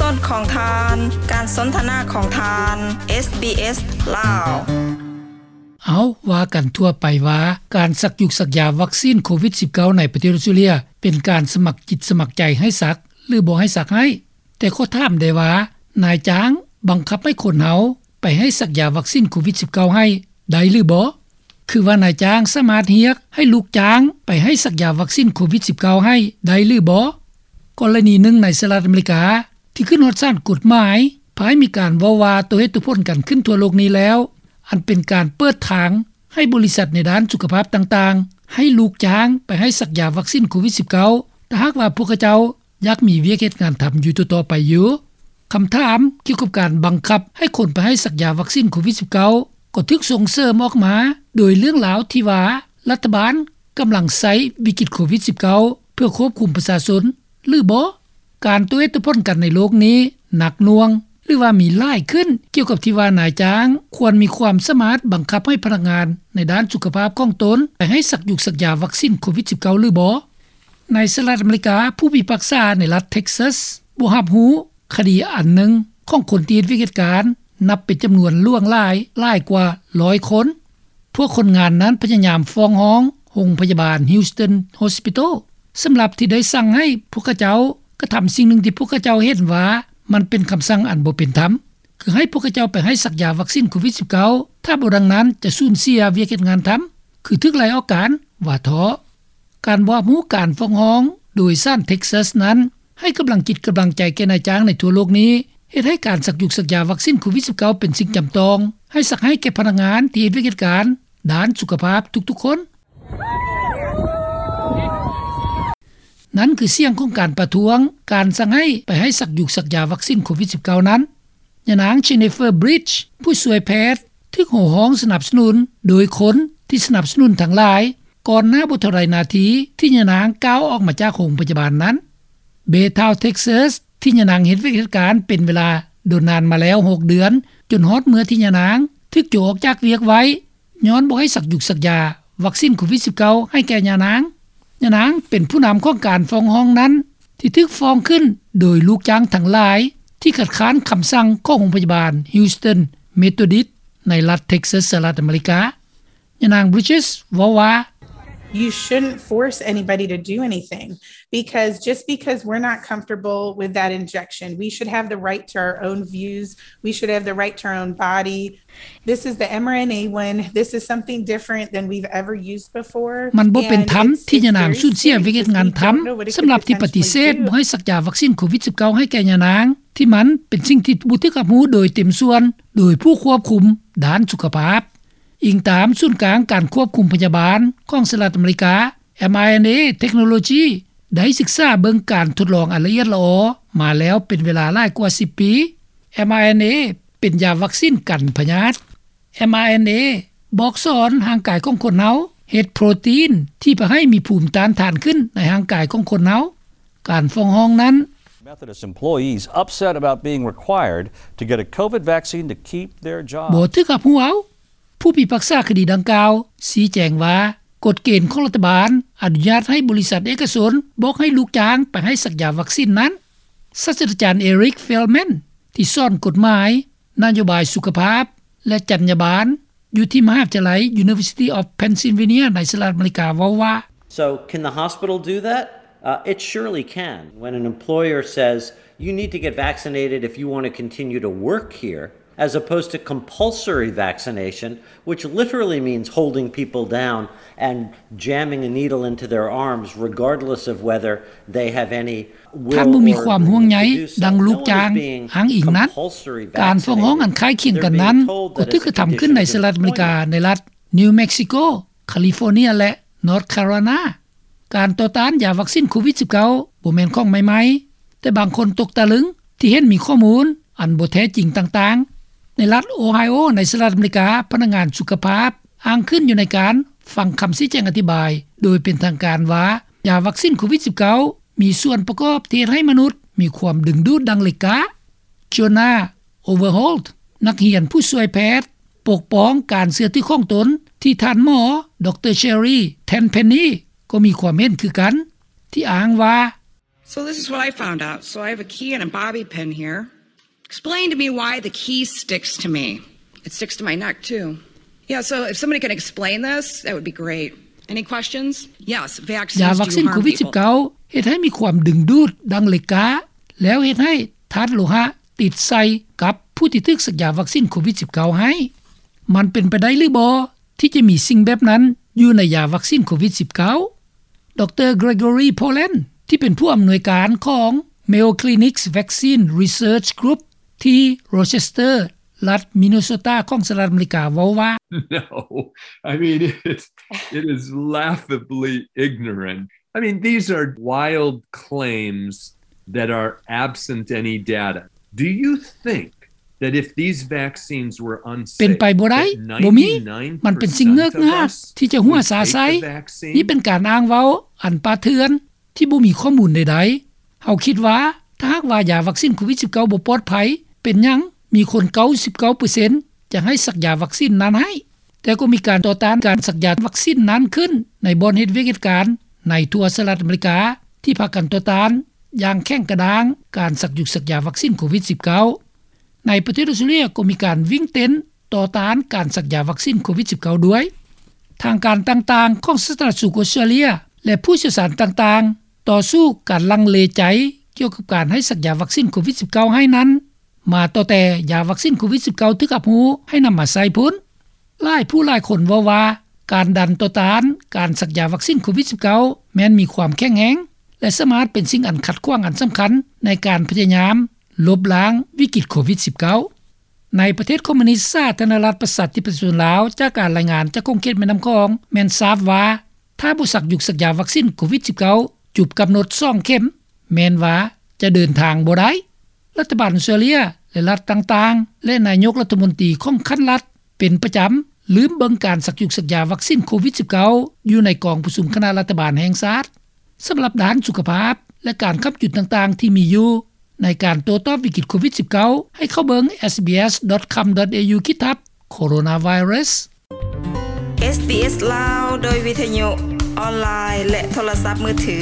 ສົດຂອງທ່ານ ການສົນທະນາຂອງທ່ານ ເອສບີເອສ ລາວ. ເອົາ ວ່າກັນທົ່ວໄປວ່າ ການສັກຢຸກສັກຢາວັກຊີນໂຄວິດສິບເກົ້າ ໃນປະເທດອອສເຕຣເລັຽ ເປັນການສະໝັກຈິດສະໝັກໃຈໃຫ້ສັກ ຫຼື ບໍ່ໃຫ້ສັກໃຫ້. ແຕ່ຂໍຖາມແດ່ວ່າ ນາຍຈ້າງບັງຄັບໃຫ້ຄົນເຮົາໄປໃຫ້ສັກຢາວັກຊີນໂຄວິດສິບເກົ້າໃຫ້ໄດ້ຫຼືບໍ່? ຄືວ່ານາຍຈ້າງສາມາດຮຽກໃຫ້ລູກຈ້າງໄປໃຫ້ສັກຢາວັກຊີນໂຄວິດສິບເກົ້າໃຫ້ໄດ້ຫຼືບໍ່? ກໍລະນີໜຶ່ງໃນສະຫະລັດອາເມລິກາ ທີ່ຂຶ້ນຮອດສານກົດໝາຍ ພາຍມີການເວົ້າວ່າໂຕເຫດໂຕຜົນກັນຂຶ້ນທົ່ວໂລກນີ້ແລ້ວ ອັນເປັນການເປີດທາງໃຫ້ບໍລິສັດໃນດ້ານສຸຂະພາບຕ່າງໆ ໃຫ້ລູກຈ້າງໄປໃຫ້ສັກຢາວັກຊີນໂຄວິດສິບເກົ້າ ຖ້າຫາກວ່າພວກເຂົາເຈົ້າ ຢາກມີວຽກເຮັດງານທຳຢູ່ຕໍ່ໆໄປຢູ່. ຄຳຖາມກ່ຽວກັບການບັງຄັບໃຫ້ຄົນໄປໃຫ້ສັກຢາວັກຊີນໂຄວິດສິບເກົ້າ ກໍຖືກສົ່ງເສີມອອກມາໂດຍເລື່ອງລາວທີ່ວ່າ ລັດຖະບານກຳລັງໃຊ້ວິກິດໂຄວິດສິບເກົ້າ ເພື່ອຄວບຄຸມປະຊາຊົນ ຫຼືບໍ່? ການໂຕເຫດໂຕຜົນກັນໃນໂລກນີ້ໜັກໜ່ວງ ຫຼືວ່າມີຫຼາຍຂຶ້ນ ກ່ຽວກັບທີ່ວ່ານາຍຈ້າງຄວນມີຄວາມສາມາດບັງຄັບໃຫ້ພະນັກງານໃນດ້ານສຸຂະພາບຂອງຕົນ ໄປໃຫ້ສັກຢຸກສັກຢາວັກຊີນໂຄວິດສິບເກົ້າ ຫຼືບໍ່? ໃນສະຫະລັດອາເມລິກາ, ຜູ້ພິພາກສາໃນລັດເທັກຊັສບໍ່ຮັບຮູ້ຄະດີອັນໜຶ່ງຂອງຄົນທີ່ເຮັດວຽກເຮັດການ ນັບເປັນຈຳນວນຫຼວງຫຼາຍ, ຫຼາຍກວ່າຮ້ອຍຄົນ. ພວກຄົນງານນັ້ນພະຍາຍາມຟ້ອງຮ້ອງໂຮງພະຍາບານ Houston Hospital ສຳລັບທີ່ໄດ້ສັ່ງໃຫ້ພວກເຂົາເຈົ້າກະທຳສິ່ງໜຶ່ງທີ່ພວກເຂົາເຈົ້າເຫັນວ່າມັນເປັນຄຳສັ່ງອັນບໍ່ເປັນທຳ, ຄືໃຫ້ພວກເຂົາເຈົ້າໄປໃຫ້ສັກຢາວັກຊີນໂຄວິດສິບເກົ້າ, ຖ້າບໍ່ດັ່ງນັ້ນຈະສູນເສຍວຽກເຮັດງານທຳ, ຄືຖືກໄລ່ອອກການ, ວ່າເທາະ. ການບໍ່ຮັບຮູ້ການຟ້ອງຮ້ອງໂດຍສານເທັກຊັສນັ້ນ ໃຫ້ກຳລັງຈິດກຳລັງໃຈແກ່ນາຍຈ້າງໃນທົ່ວໂລກນີ້, ເຮັດໃຫ້ການສັກຢຸກສັກຢາວັກຊີນໂຄວິດສິບເກົ້າ ເປັນສິ່ງຈຳຕ້ອງ, ໃຫ້ສັກໃຫ້ແກ່ພະນັກງານທີ່ເຮັດວຽກເຮັດການດ້ານສຸຂະພາບທຸກໆຄົນ. ນັ້ນຄືສຽງຂອງການປະທ້ວງການສັ່ງໃຫ້ໄປໃຫ້ສັກຢຸກສັກຢາວັກຊີນໂຄວິດສິບເກົ້ານັ້ນ. ຍານາງ Jennifer Bridge ຜູ້ຊ່ວຍແພດ ຖືກໂຫ່ຮ້ອງສະໜັບສະໜູນໂດຍຄົນທີ່ສະໜັບສະໜູນທັງຫຼາຍ ກ່ອນໜ້າບໍ່ເທົ່າໃດນາທີທີ່ຍານາງກ້າວອອກມາຈາກໂຮງພະຍາບານນັ້ນ. Baytown Texas ທີ່ຍານາງເຮັດວຽກເຮັດການເປັນເວລາດົນນານມາແລ້ວຫົກເດືອນ, ຈົນຮອດເມື່ອທີ່ຍານາງຖືກໂຈະອອກຈາກວຽກໄວ້ ຍ້ອນບໍ່ໃຫ້ສັກຢຸກສັກຢາວັກຊີນໂຄວິດສິບເກົ້າໃຫ້ແກ່ຍານາງ. ຍານາງເປັນຜູ້ນຳຂອງການຟ້ອງຮ້ອງນັ້ນ ທີ່ຖືກຟ້ອງຂຶ້ນໂດຍລູກຈ້າງທັງຫຼາຍ ທີ່ຄັດຄ້ານຄຳສັ່ງຂອງໂຮງພະຍາບານ Houston Methodist ໃນລັດເທັກຊັສ ສະຫະລັດອາເມລິກາ. ຍານາງ Bridges ເວົ້າວ່າ, You shouldn't force anybody to do anything, because just because we're not comfortable with that injection, we should have the right to our own views, we should have the right to our own body. This is the mRNA one. This is something different than we've ever used before. ມັນບໍ່ເປັນທຳທີ່ຍານາງສູນເສຍວຽກເຮັດງານທຳ ສຳລັບທີ່ປະຕິເສດບໍ່ໃຫ້ສັກຢາວັກຊີນໂຄວິດສິບເກົ້າໃຫ້ແກ່ຍານາງ, ທີ່ມັນເປັນສິ່ງທີ່ບໍ່ຖືກຮັບຮູ້ໂດຍເຕັມສ່ວນໂດຍຜູ້ຄວບຄຸມດ້ານສຸຂະພາບ. ອີງຕາມສູນກາງການຄວບຄຸມພະຍາບານຂອງສະຫະລັດອາເມລິກາ, mRNA Technology ໄດ້ສຶກສາເບິ່ງການທົດລອງອັນລະອຽດລະອໍມາແລ້ວເປັນເວລາຫຼາຍກວ່າສິບປີ. mRNA ເປັນຢາວັກຊີນກັນພະຍາດ. mRNA ບອກສອນຮ່າງກາຍຂອງຄົນເຮົາເຮັດໂປຣຕີນທີ່ພາໃຫ້ມີພູມຕ້ານທານຂຶ້ນໃນຮ່າງກາຍຂອງຄົນເຮົາ. ການຟ້ອງຮ້ອງນັ້ນ. Methodist employees upset about being required to get a COVID vaccine to keep their job. ບໍ່ຖືກຮັບຮູ້ເອົາ. ຜູ້ພິພາກສາຄະດີດັ່ງກ່າວຊີ້ແຈງວ່າ ກົດເກນຂອງລັດຖະບານອະນຸຍາດໃຫ້ບໍລິສັດເອກະຊົນບອກໃຫ້ລູກຈ້າງໄປໃຫ້ສັກຢາວັກຊີນນັ້ນ. ສາດສະດາຈານ Eric Feldman ທີ່ສອນກົດໝາຍ, ນະໂຍບາຍສຸຂະພາບ ແລະ ຈັນຍາບານ ຢູ່ທີ່ມະຫາວິທະຍາໄລ University of Pennsylvania ໃນສະຫະລັດອາເມລິກາ ເວົ້າວ່າ, So, can the hospital do that? Uh, it surely can. When an employer says, "You need to get vaccinated if you want to continue to work here," as opposed to compulsory vaccination, which literally means holding people down and jamming a needle into their arms, regardless of whether they have any will or willingness to do so. ທ່ານບໍ່ມີຄວາມຫ່ວງໃຍດັ່ງລູກຈ້າງອ້າງອີງນັ້ນ. ການຟ້ອງຮ້ອງອັນຄ້າຍຄຽງກັນນັ້ນ ກໍຖືກກະທຳຂຶ້ນໃນສະຫະລັດອາເມລິກາ ໃນລັດ New Mexico, California ແລະ North Carolina. ການຕໍ່ຕ້ານຢາວັກຊີນໂຄວິດສິບເກົ້າ ບໍ່ແມ່ນຂອງໃໝ່ໆ, ແຕ່ບາງຄົນຕົກຕະລຶງທີ່ເຫັນມີຂໍ້ມູນອັນບໍ່ແທ້ຈິງຕ່າງໆ. ໃນລັດໂອໄຮໂອ ໃນສະຫະລັດອາເມລິກາ, ພະນັກງານສຸຂະພາບອ້າງຂຶ້ນຢູ່ໃນການຟັງຄຳຊີ້ແຈງອະທິບາຍໂດຍເປັນທາງການວ່າ ຢາວັກຊີນໂຄວິດສິບເກົ້າ ມີສ່ວນປະກອບທີ່ເຮັດໃຫ້ມະນຸດມີຄວາມດຶງດູດດັ່ງເຫຼັກກ້າ. Jonah Overholt ນັກຮຽນຜູ້ຊ່ວຍແພດປົກປ້ອງການເຊື່ອຖືຂອງຕົນ ທີ່ທ່ານໝໍ ດຣ Sherry Tenpenny ກໍມີຄວາມເຫັນຄືກັນ ທີ່ອ້າງວ່າ, So this is what I found out. So I have a key and a bobby pin here. Explain to me why the key sticks to me. It sticks to my neck too. Yeah, so if somebody can explain this, that would be great. Any questions? Yes, vaccines ຢາວັກຊິນໂຄວິດ-19 ເຮັດໃຫ້ມີຄວາມດຶງດູດດັ່ງເຫຼັກກ້າ ແລ້ວເຮັດໃຫ້ທາດໂລຫະຕິດໃສ່ກັບຜູ້ທີ່ຖືກສັກຢາວັກຊິນໂຄວິດ-19 ໃຫ້. ມັນເປັນໄປໄດ້ຫຼືບໍ່ ທີ່ຈະມີສິ່ງແບບນັ້ນຢູ່ໃນຢາວັກຊິນໂຄວິດ-19? ດຣ Gregory Poland ທີ່ເປັນຜູ້ອຳນວຍການຂອງ Mayo Clinic's Vaccine Research Group ທີ່ Rochester ລັດ Minnesota ຂອງສະຫະລັດອາເມລິກາເວົ້າວ່າ No, I mean, it, it is laughably ignorant. I mean, these are wild claims that are absent any data. Do you think that if these vaccines were unsafe, ເປັນໄປບໍ່ໄດ້ ບໍ່ມີ ມັນເປັນສິ່ງເງີກງາກທີ່ຈະຫົວຊາໃສ່. ນີ້ເປັນການອ້າງເວົ້າອັນປ່າເຖື່ອນ ທີ່ບໍ່ມີຂໍ້ມູນໃດໆ. ເຮົາຄິດວ່າ ຖ້າຫາກວ່າຢາວັກຊິນໂຄວິດ-19 ບໍ່ປອດໄພ ເປັນຫຍັງມີຄົນ ເກົ້າສິບເກົ້າເປີເຊັນ ຈະໃຫ້ສັກຢາວັກຊິນນັ້ນໃຫ້? ແຕ່ກໍມີການຕໍ່ຕ້ານການສັກຢາວັກຊິນນັ້ນຂຶ້ນ ໃນບ່ອນເຮັດວຽກເຮັດການໃນທົ່ວສະຫະລັດອາເມລິກາ ທີ່ພາກັນຕໍ່ຕ້ານຢ່າງແຂງກະດ້າງການສັກຍຸກສັກຢາວັກຊິນໂຄວິດ-19. ໃນປະເທດອອສເຕຣເລັຍກໍມີການວິ່ງເຕັ້ນຕໍ່ຕ້ານການສັກຢາວັກຊິນໂຄວິດ-19 ດ້ວຍ. ທາງການຕ່າງໆຂອງສາທາລະນະສຸກອອສເຕຣເລັຍ ແລະ ຜູ້ຊ່ຽວຊານຕ່າງໆ ຕໍ່ສູ້ການລັງເລໃຈກ່ຽວກັບການໃຫ້ສັກຢາວັກຊິນໂຄວິດ-19 ໃຫ້ນັ້ນ ມາຕັ້ງແຕ່ຢາວັກຊິນໂຄວິດ-19 ຖືກຮັບຮູ້ໃຫ້ນຳມາໃຊ້ພຸ້ນ. ຫຼາຍຜູ້ຫຼາຍຄົນເວົ້າວ່າ ການດັນຕໍ່ຕ້ານການສັກຢາວັກຊິນໂຄວິດ-19 ແມ່ນມີຄວາມແຂງແຮງ ແລະ ສາມາດເປັນສິ່ງອັນຂັດຂວາງອັນສຳຄັນໃນການພະຍາຍາມລົບລ້າງວິກິດໂຄວິດ-19. ໃນປະເທດຄອມມູນິດສາທາລະນະລັດປະຊາທິປະຊາຊົນລາວ ຈາກການລາຍງານຈາກຂົງເຂດແມ່ນ້ຳຂອງ ແມ່ນຊາບວ່າ ຖ້າບໍ່ສັກຍຸກສັກຢາວັກຊິນໂຄວິດ-19 ຈົບກຳນົດສອງເຂັມ ແມ່ນວ່າຈະເດີນທາງບໍ່ໄດ້. ລັດຖະບານອອສເຕຣເລັຍ ແລະ ລັດຕ່າງໆ ແລະ ນາຍົກລັດຖະມົນຕີຂອງຂັ້ນລັດ ເປັນປະຈຳລືມເບິ່ງການສັກຍຸກສັກຢາວັກຊິນໂຄວິດ-19 ຢູ່ໃນກອງປະຊຸມຄະນະລັດຖະບານແຫ່ງຊາດ. ສຳລັບດ້ານສຸຂະພາບ ແລະ ການຄ້ຳຈຸນຕ່າງໆທີ່ມີຢູ່ໃນການໂຕ້ຕອບວິກິດໂຄວິດ-19 ໃຫ້ເຂົ້າເບິ່ງ sbs.com.au/coronavirus. SBS ລາວ ໂດຍວິທະຍຸ ອອນລາຍ ແລະ ໂທລະສັບມືຖື.